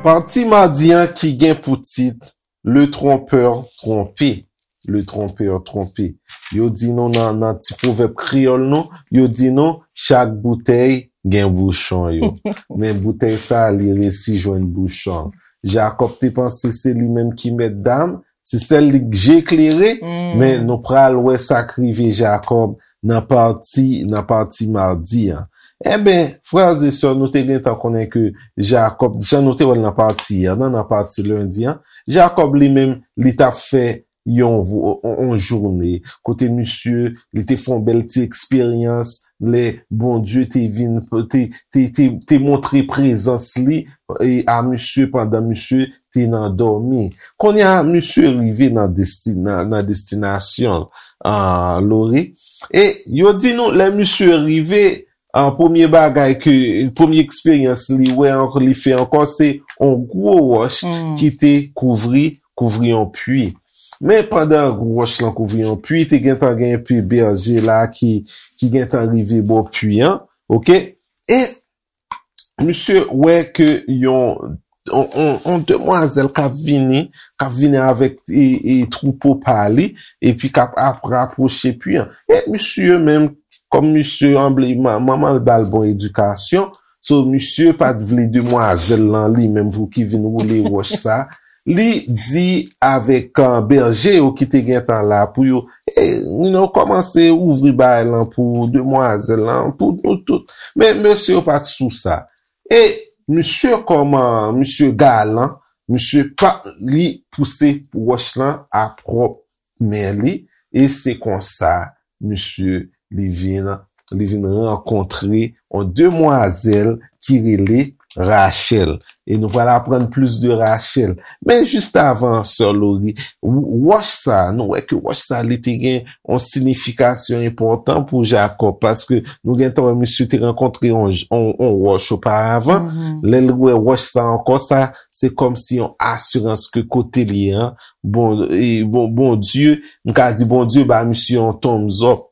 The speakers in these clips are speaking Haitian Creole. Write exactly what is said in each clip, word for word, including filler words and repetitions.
Pati madi an ki gen pou tit Le trompeur trompé. Le trompeur trompé. Yo di nou nan, nan ti pwovèb kreyòl nou, yo di nou, chak boutèy gen bouchon yo. Men boutèy sa, li resi jwenn bouchon. Jakòb te panse se li menm ki mèt dam, se sèl li k je klere, men nou pral wè sa k rive Jakòb nan pati, nan pati madi an. Enben, frè e sè, nou te gentan konnen ke Jakòb, jan nou te wè l nan pati yè, nan, nan pati lendi an, Jakòb li menm, li t ap fè yon, vo- yon, yon jounen, kote misye, li te fè yon bèl ti eksperyans, lè Bondye te vin, te, te, te, te montre prezans li e, a misye pandan misye te nan dòmi. Kounye a, misye rive nan, desti, nan, nan destinasyon l, Lori. E yo di nou, lè misye rive, an premye bagay ke, premye eksperyans li wè ankò, li fè ankò, se yon gwo wòch ki te kouvri, kouvri yon pwi. Men pandan wòch lan kouvri yon pwi, te gentan gen enpe bèje la ki, ki gentan rive bò pwi an, oke? E misye wè ke yon, yon, yon, yon demwazèl k ap vini, k ap vini avèk e, e, twoupo pa li, epi k ap, ap rapwoche pwi an. E misye menm, kòm misye anble, ma- manman l ba l bon edikasyon, so misye pa t vle demwazèl lan li menm pou ki vin woule wòch sa. Li di avèk, uh, bèje yo ki te gentan la pou yo, e, you know, kòmanse ouvri bagay lan pou demwazèl lan, pou nou tout. Men mesye yo pa t sou sa. E misye kòman, misye galan, misye pa, li pouse wòch lan a pwòp men li, e se konsa, misye, li vin, li vin rankontre yon demwazèl ki rele Rachèl. E nou pral aprann plis de Rachèl. Men jis avan, sè Lori, w- wòch sa, nou wè ke wòch sa, li te gen yon siyifikasyon enpòtan pou Jakòb, paske nou gentan wè misye te rankontre yon, yon, yon wòch oparavan. Lè l wè wòch sa ankò, sa, se kòmsi yon asirans ke kote li an, bon, e, bon, Bondye, m ka di Bondye ba misye yon thumbs up,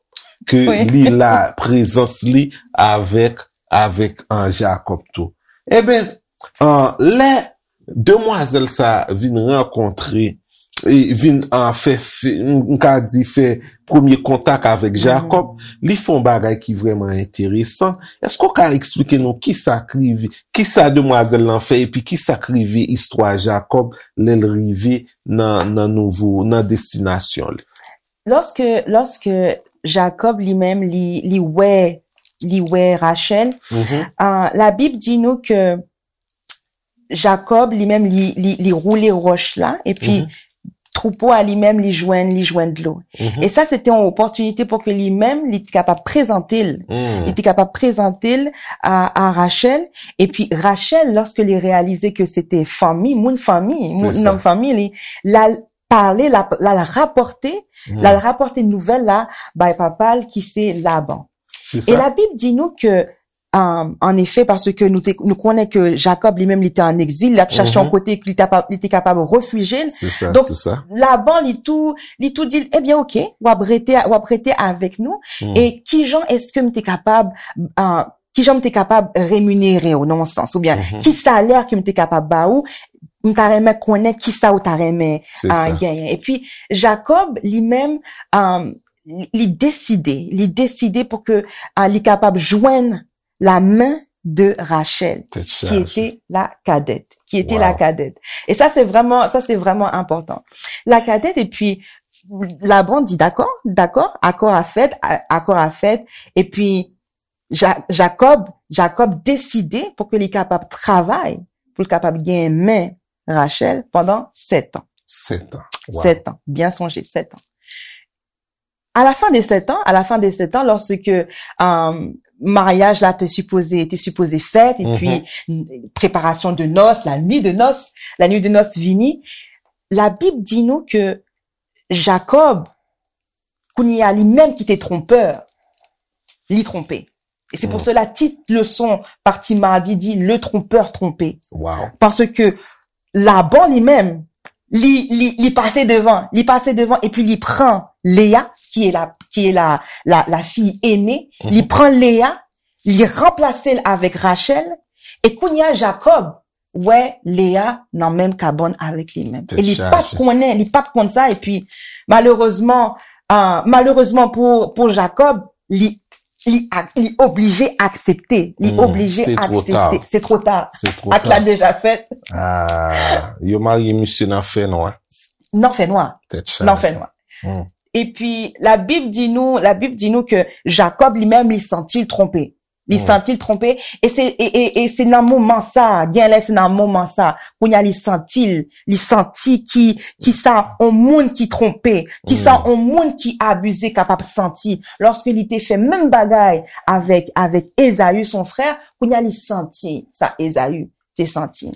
ke li la, prezans li avèk, avèk, an, Jakòb tou. Enben, an, lè demwazèl sa vin rankontre, e vin, an, fè, fè, m ka di fè premye kontak avèk Jakòb, li fè yon bagay ki vrèman enteresan. Èske w ka eksplike nou kisa k rive, kisa demwazèl lan fè, epi kisa k rive istwa Jakòb lè l rive nan, nan nouvo, nan destinasyon li? Lòske, lòske Jakòb li menm, li, li wè, li wè Rachèl, ah, Labib di nou ke Jakòb li menm, li, li, li woule wòch la, epi twoupo a li menm, li jwenn, li jwenn dlo. E sa, se te yon opòtinite pou ke li menm, li te kapab prezante l. Li te kapab prezante l a, a Rachèl. Epi Rachèl, lòske li reyalize ke se te fanmi, moun fanmi, moun, nonm fanmi li, l al pale, l al, l al rapòte, l al rapòte nouvèl la bay papa l ki se Laban. E Labib di nou ke, um, an efè, paske nou te, nou konnen ke Jakòb li menm li te an egzil, l ap chache yon kote ke li te kapab, li te kapab refijye l. Donk, Laban li tou, li tou di l, ebyen, oke, w ap rete, w ap rete avèk nou. E kijan èske m te kapab, uh, kijan m te kapab reminere w nan yon sans, oubyen ki salè ke m te kapab ba ou, m ta renmen konnen kisa ou ta renmen, ah, genyen. Epi, Jakòb, li menm, um, li, li deside, li deside pou ke, ah, li kapab jwenn la men de Rachèl, ki ete la kadèt, ki ete la kadèt. E sa, se vrèman, sa, se vrèman enpòtan. La kadèt, epi, Laban di, dakò, dakò, akò a fèt, a- akò a fèt, epi Ja- Jakòb, Jakòb deside pou ke li kapab travay, pou l kapab genyen men Rachèl pandan sèt an. Sèt an. Sèt an, byen sonje, sèt an. À la fin de sept ans, à la fin de sept ans, lorsque, euh, maryaj la te sipoze, te sipoze fèt, epi preparasyon de nòs, la nuit de noces, la nuit de noces vini, Labib di nou ke Jakòb, kounye a, li menm ki te tronpè, li twonpe. E se pou sela tit leson pati madi di Le trompeur trompé. Paske Laban li menm, li, li, li pase devan, li pase devan, epi li pran Léa, qui est la, qui est la, la, la fille aînée, li pran Léa, li ranplase l avèk Rachel, e kounye a Jacob wè Léa nan menm kabann avèk li menm. E li pa t konnen, li pa t konn sa, epi malerezman, ah, malerezman pou, pou Jacob, li, li, ak- li oblije aksepte. Li oblije aksepte. Se twò ta. Se twò ta. Ak la deja fèt. Ah, yo marye misye nan fè nwa. Nan fè nwa. Tèt Nan fè chaje. Nwa. Epi, Labib di nou, Labib di nou ke Jacob li menm, li santi l twonpe. Li santi l twonpe. E se, e, e, e se nan moman sa, gen lè se nan moman sa, kounye a li santi l, li santi ki, ki sa on moun ki twonpe, ki sa on moun ki abize kapab santi. Lòske li te fè menm bagay avèk, avèk Ezaü, son frè, kounye a li santi sa Ezaü te santi.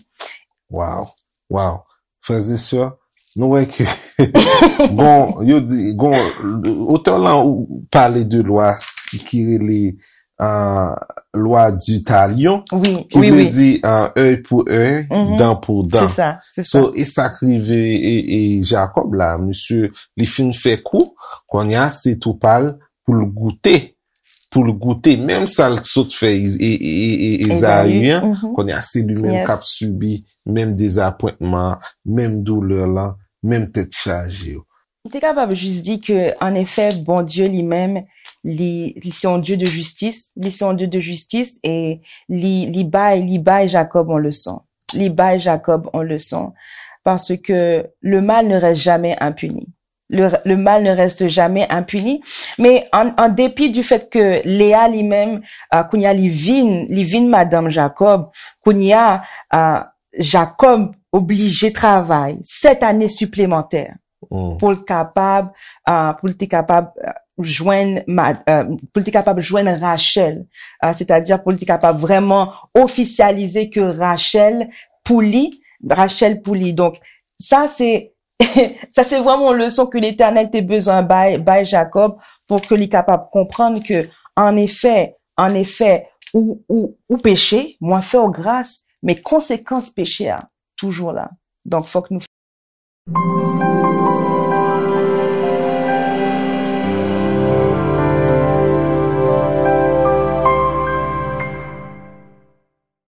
Wow, wow. Frères et sœurs, nou wè ke gon, yo di, gon, otè lan ou pale de lwa ki rele uh, lwa du talion, wi, ki wi, vle wi. Di uh, œil pour œil, Mhm. Dent pour dent. Se sa, se sa. So, e sa k rive e, e Jacob la, misye, li fin fè kou, kounye a se tou pa l pou l goute, pou l goute, menm sa l sot fè e, e, e, e, Ezaü an, Mhm. kounye a se li menm Yes. k ap sibi menm dezapwentman, menm doulè lan, menm tèt chaje yo. M te kapab jis di ke, an efè, Bondye li menm, li, li se yon Dye de jistis, li se yon Dye de jistis, e li, li bay, li bay Jacob yon leson. Li bay Jacob yon leson. Parce que le mal ne reste jamais impuni. Le, le mal ne reste jamais impuni. Men an, an depi du fait que Léa li menm, uh, kounye a li vin, li vin madanm Jacob, kounye a, uh, Jacob oblije travay sèt ane siplemantè Mm. Pou l kapab, uh, pou l te kapab uh, jwenn, uh, pou l te kapab jwenn Rachel, uh, c'est-à-dire pou l te kapab vrèman ofisyalize ke Rachel pou li, Rachel pou li. Donk, sa se sa se vrèman yon leson ke Letènèl te bezwen bay, bay Jacob pou ke li kapab konprann ke, an efè, an efè, ou, ou, ou peche, mwen fè w gras, men konsekans peche a toujou la. Donk, fòk nou